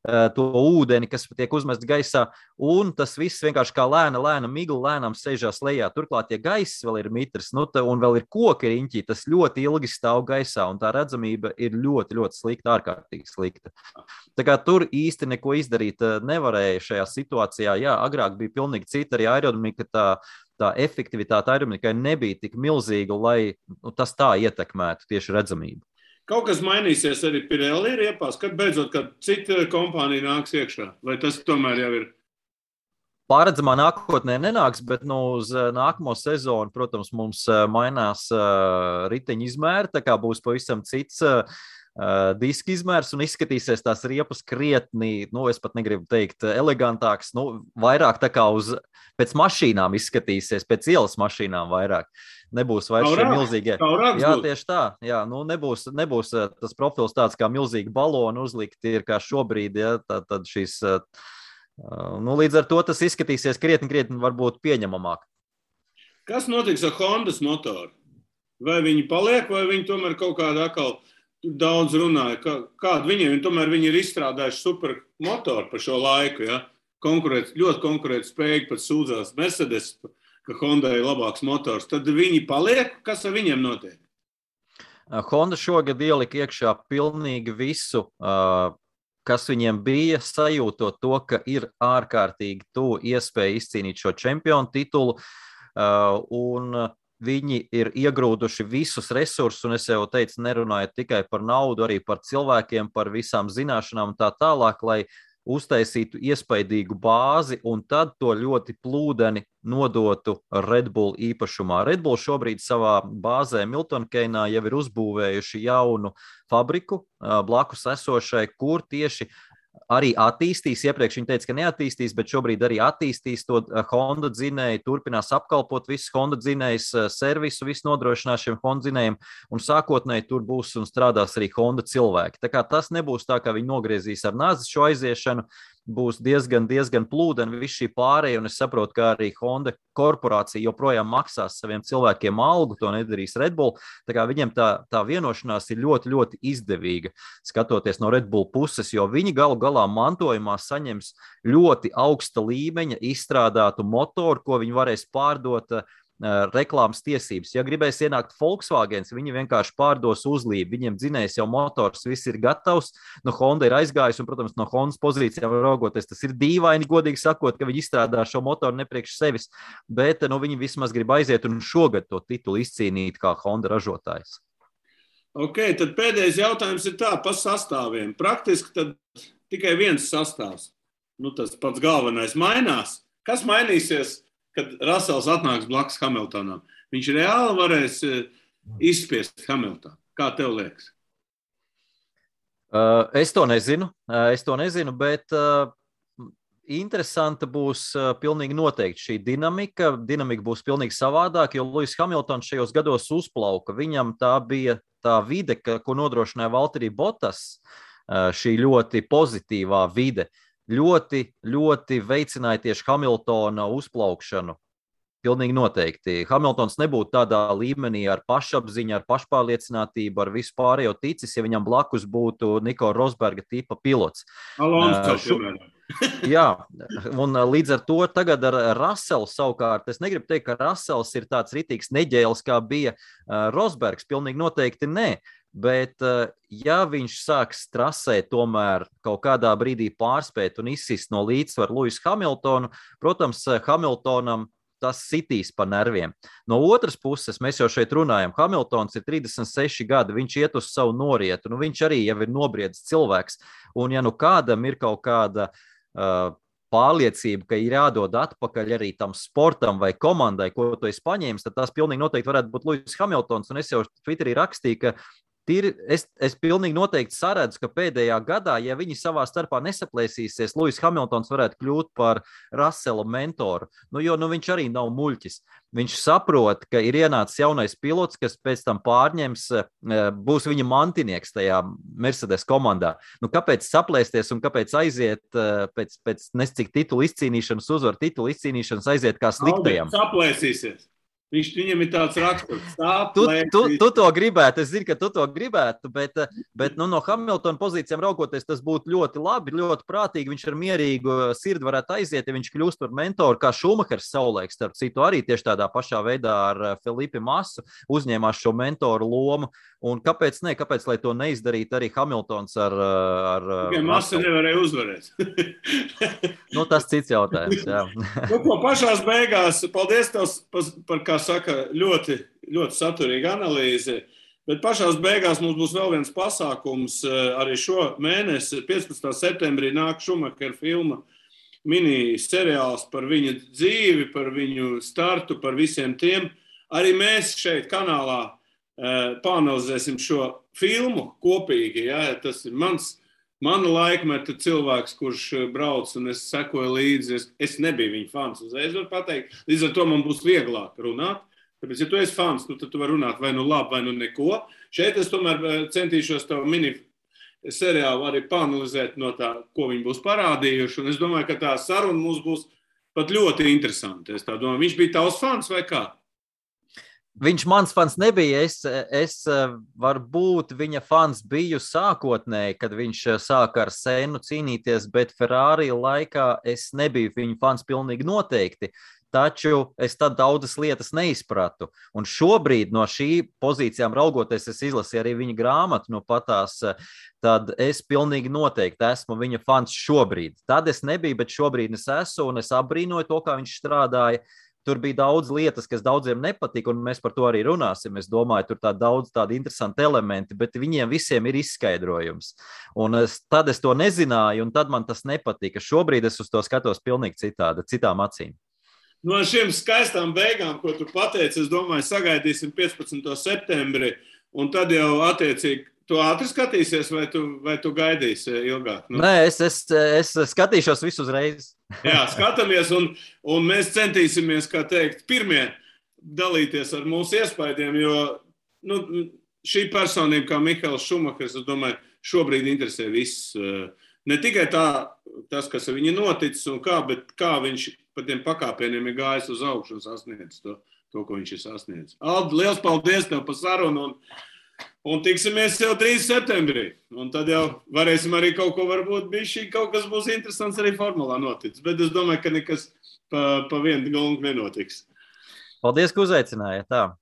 to ūdeni, kas tiek uzmests gaisā, un tas viss vienkārši kā lēna migla, lēnām sēžās lejā. Turklāt, ja gaiss vēl ir mitrs, un vēl ir koki riņķi, tas ļoti ilgi stāv gaisā, un tā redzamība ir ļoti, ļoti slikta, ārkārtīgi slikta. Tā kā tur īsti neko izdarīt nevarēja šajā situācijā. Jā, agrāk bija pilnīgi cita, arī aerodinamika, tā efektivitāte aerodinamikai nebija tik milzīga, lai tas tā ietekmētu tieši redzamību. Kaut kas mainīsies arī Pirelli riepās, kad beidzot, kad cita kompānija nāks iekšā? Vai tas tomēr jau ir? Pārredzamā nākotnē nenāks, bet uz nākamo sezonu, protams, mums mainās riteņu izmēri, tā kā būs pavisam cits diska izmērs un izskatīsies tās riepas krietni, es pat negribu teikt elegantāks, vairāk tā kā pēc mašīnām izskatīsies, pēc ielas mašīnām vairāk. Nebūs vairs šie milzīgie. Jā, tieši tā. Jā, nebūs tas profils tāds kā milzīgi baloni uzlikti ir kā šobrīd, ja, tad šīs, līdz ar to tas izskatīsies krietni varbūt pieņemamāk. Kas notiks ar Hondas motoru? Vai viņi paliek, vai viņi tomēr kaut kādā atkal daudz runāja? Kādu viņiem, tomēr viņi ir izstrādājuši super motoru par šo laiku, ja? Ļoti konkurēt spējīgi pat sūdzās Mercedes, ka Honda ir labāks motors, tad viņi paliek, kas ar viņiem notiek? Honda šogad ielika iekšā pilnīgi visu, kas viņiem bija, sajūtot to, ka ir ārkārtīgi tuvu iespēja izcīnīt šo čempionu titulu, un viņi ir iegrūduši visus resursus, un es jau teicu, nerunājot tikai par naudu, arī par cilvēkiem, par visām zināšanām un tā tālāk, lai uztaisītu iespaidīgu bāzi un tad to ļoti plūdeni nodotu Red Bull īpašumā. Red Bull šobrīd savā bāzē Milton Keynesā jau ir uzbūvējuši jaunu fabriku blakus esošai, kur tieši arī attīstīs, iepriekš viņi teica, ka neattīstīs, bet šobrīd arī attīstīs to Honda dzinēju, turpinās apkalpot visus Honda dzinējus, servisu, visu nodrošinās šiem Honda dzinējiem, un sākotnēji tur būs un strādās arī Honda cilvēki. Tā kā tas nebūs tā, ka viņi nogriezīs ar nazi šo aiziešanu, būs diezgan plūdeni viss šī pārēja, un es saprotu, ka arī Honda korporācija joprojām maksās saviem cilvēkiem algu, to nedarīs Red Bull, tā kā viņiem tā vienošanās ir ļoti, ļoti izdevīga, skatoties no Red Bull puses, jo viņi galu galā mantojumā saņems ļoti augsta līmeņa izstrādātu motoru, ko viņi varēs pārdot reklāmas tiesības. Ja gribēs ienākt Volkswagens, viņi vienkārši pārdos uzlību. Viņiem dzinējs jau motors, viss ir gatavs. No Honda ir aizgājis, un, protams, no Hondas pozīcijām raugoties, tas ir dīvaini, godīgi sakot, ka viņi izstrādā šo motoru nepriekš sevis, bet viņi vismaz grib aiziet un šogad to titulu izcīnīt kā Honda ražotājs. Ok, tad pēdējais jautājums ir tā, pa sastāviem. Praktiski tad tikai viens sastāvs. Tas pats galvenais mainās. Kas mainīsies, kad Russells atnāks blakus Hamiltonam? Viņš reāli varēs izspiest Hamiltonu. Kā tev liekas? Es to nezinu, bet interesanta būs pilnīgi noteikti šī dinamika. Dinamika būs pilnīgi savādāk, jo Lewis Hamiltons šajos gados uzplauka. Viņam tā bija tā vide, ko nodrošināja Valtteri Bottas, šī ļoti pozitīvā vide. Ļoti, ļoti veicināja tieši Hamiltona uzplaukšanu. Pilnīgi noteikti. Hamiltons nebūtu tādā līmenī ar pašapziņu, ar pašpārliecinātību, ar visu pārējo ticis, ja viņam blakus būtu Nico Rosberga tipa pilots. Jā, un līdz ar to tagad ar Russellu savukārt, es negribu teikt, ka Russells ir tāds ritīgs neģēlis, kā bija Rosbergs, pilnīgi noteikti nē. Bet, ja viņš sāks trasē tomēr kaut kādā brīdī pārspēt un izsist no līdzsvaru Lewis Hamiltonu, protams, Hamiltonam tas sitīs pa nerviem. No otras puses, mēs jau šeit runājam, Hamiltons ir 36 gadi, viņš iet uz savu norietu, viņš arī jau ir nobriedzis cilvēks, un ja kādam ir kaut kāda pārliecība, ka ir jādod atpakaļ arī tam sportam vai komandai, ko tu esi paņēmis, tad tas pilnīgi noteikti varētu būt Lewis Hamiltons, un es jau Twitterī rakstīju, ka es pilnīgi noteikti saredzu, ka pēdējā gadā, ja viņi savā starpā nesaplēsīsies, Lewis Hamiltons varētu kļūt par Russella mentoru. Jo viņš arī nav muļķis. Viņš saprot, ka ir ienācis jaunais pilots, kas pēc tam pārņems, būs viņa mantinieks tajā Mercedes komandā. Kāpēc saplēsties un kāpēc aiziet pēc nescik titulu izcīnīšanas, uzvaru titulu izcīnīšanas aiziet kā sliktajam? Saplēsīsies. Viņam ir tāds raksturs. Tu to gribētu, es zinu, ka tu to gribētu, bet no Hamiltona pozīcijām raugoties, tas būtu ļoti labi, ļoti prātīgi. Viņš ar mierīgu sirdi varētu aiziet, ja viņš kļūst par mentoru, kā Šumahers savulaik, starp citu, arī tieši tādā pašā veidā ar Felipe Massu uzņēmās šo mentoru lomu. Un kāpēc ne? Kāpēc, lai to neizdarītu arī Hamiltons ar Massa nevarēja uzvarēt. Tas cits jautājums, jā. Pašās beigās, paldies tev par, kā saka, ļoti, ļoti saturīga analīze, bet pašās beigās mums būs vēl viens pasākums arī šo mēnesi. 15. septembrī nāk Šumahera filma mini seriāls par viņa dzīvi, par viņu startu, par visiem tiem. Arī mēs šeit kanālā pāanalizēsim šo filmu kopīgi. Ja? Tas ir mana laikmeta cilvēks, kurš brauc, un es sekoju līdzi. Es nebiju viņa fans, uzreiz varu pateikt. Līdz ar to man būs vieglāk runāt. Tāpēc, ja tu esi fans, tad tu vari runāt vai labi, vai neko. Šeit es tomēr centīšos tavu mini seriālu arī pāanalizēt no tā, ko viņi būs parādījuši. Un es domāju, ka tā saruna mums būs pat ļoti interesanta. Es tā domāju, viņš bija tavs fans vai kā? Viņš mans fans nebija, es varbūt viņa fans biju sākotnēji, kad viņš sāka ar Sennu cīnīties, bet Ferrari laikā es nebiju viņa fans pilnīgi noteikti, taču es tad daudzas lietas neizpratu. Un šobrīd no šī pozīcijām raugoties, es izlasīju arī viņa grāmatu, patās, tad es pilnīgi noteikti esmu viņa fans šobrīd. Tad es nebiju, bet šobrīd es esmu, un es apbrīnoju to, kā viņš strādāja. tur bija daudz lietas, kas daudziem nepatika, un mēs par to arī runāsim. Es domāju, tur daudz tādi interesanti elementi, bet viņiem visiem ir izskaidrojums. Un tad es to nezināju, un tad man tas nepatika. Šobrīd es uz to skatos pilnīgi citādi, citām acīm. No šiem skaistām beigām, ko tu pateici, es domāju, sagaidīsim 15. septembri, un tad jau attiecīgi tu ātri skatīsies, vai tu gaidīsi ilgāk? Nu? Nē, es skatīšos visu uzreiz. Jā, skatāmies, un mēs centīsimies, kā teikt, pirmie dalīties ar mūsu iespaidiem, jo šī personība, kā Mihails Šumahers, es domāju, šobrīd interesē viss. Ne tikai tas, kas ar viņu noticis un kā, bet kā viņš pa tiem pakāpieniem ir gājis uz augšu un sasniedz to, ko viņš ir sasniedz. Aldi, liels paldies tev par sarunu un tiksimies jau 3. septembrī. Un tad jau varēsim arī kaut ko varbūt kaut kas būs interesants arī formulā noticis. Bet es domāju, ka nekas pa vienu galvu nenotiks. Paldies, ka uzaicinājāt. Tā.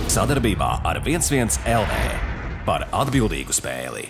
Sadarbībā ar 11 LV par atbildīgu spēli.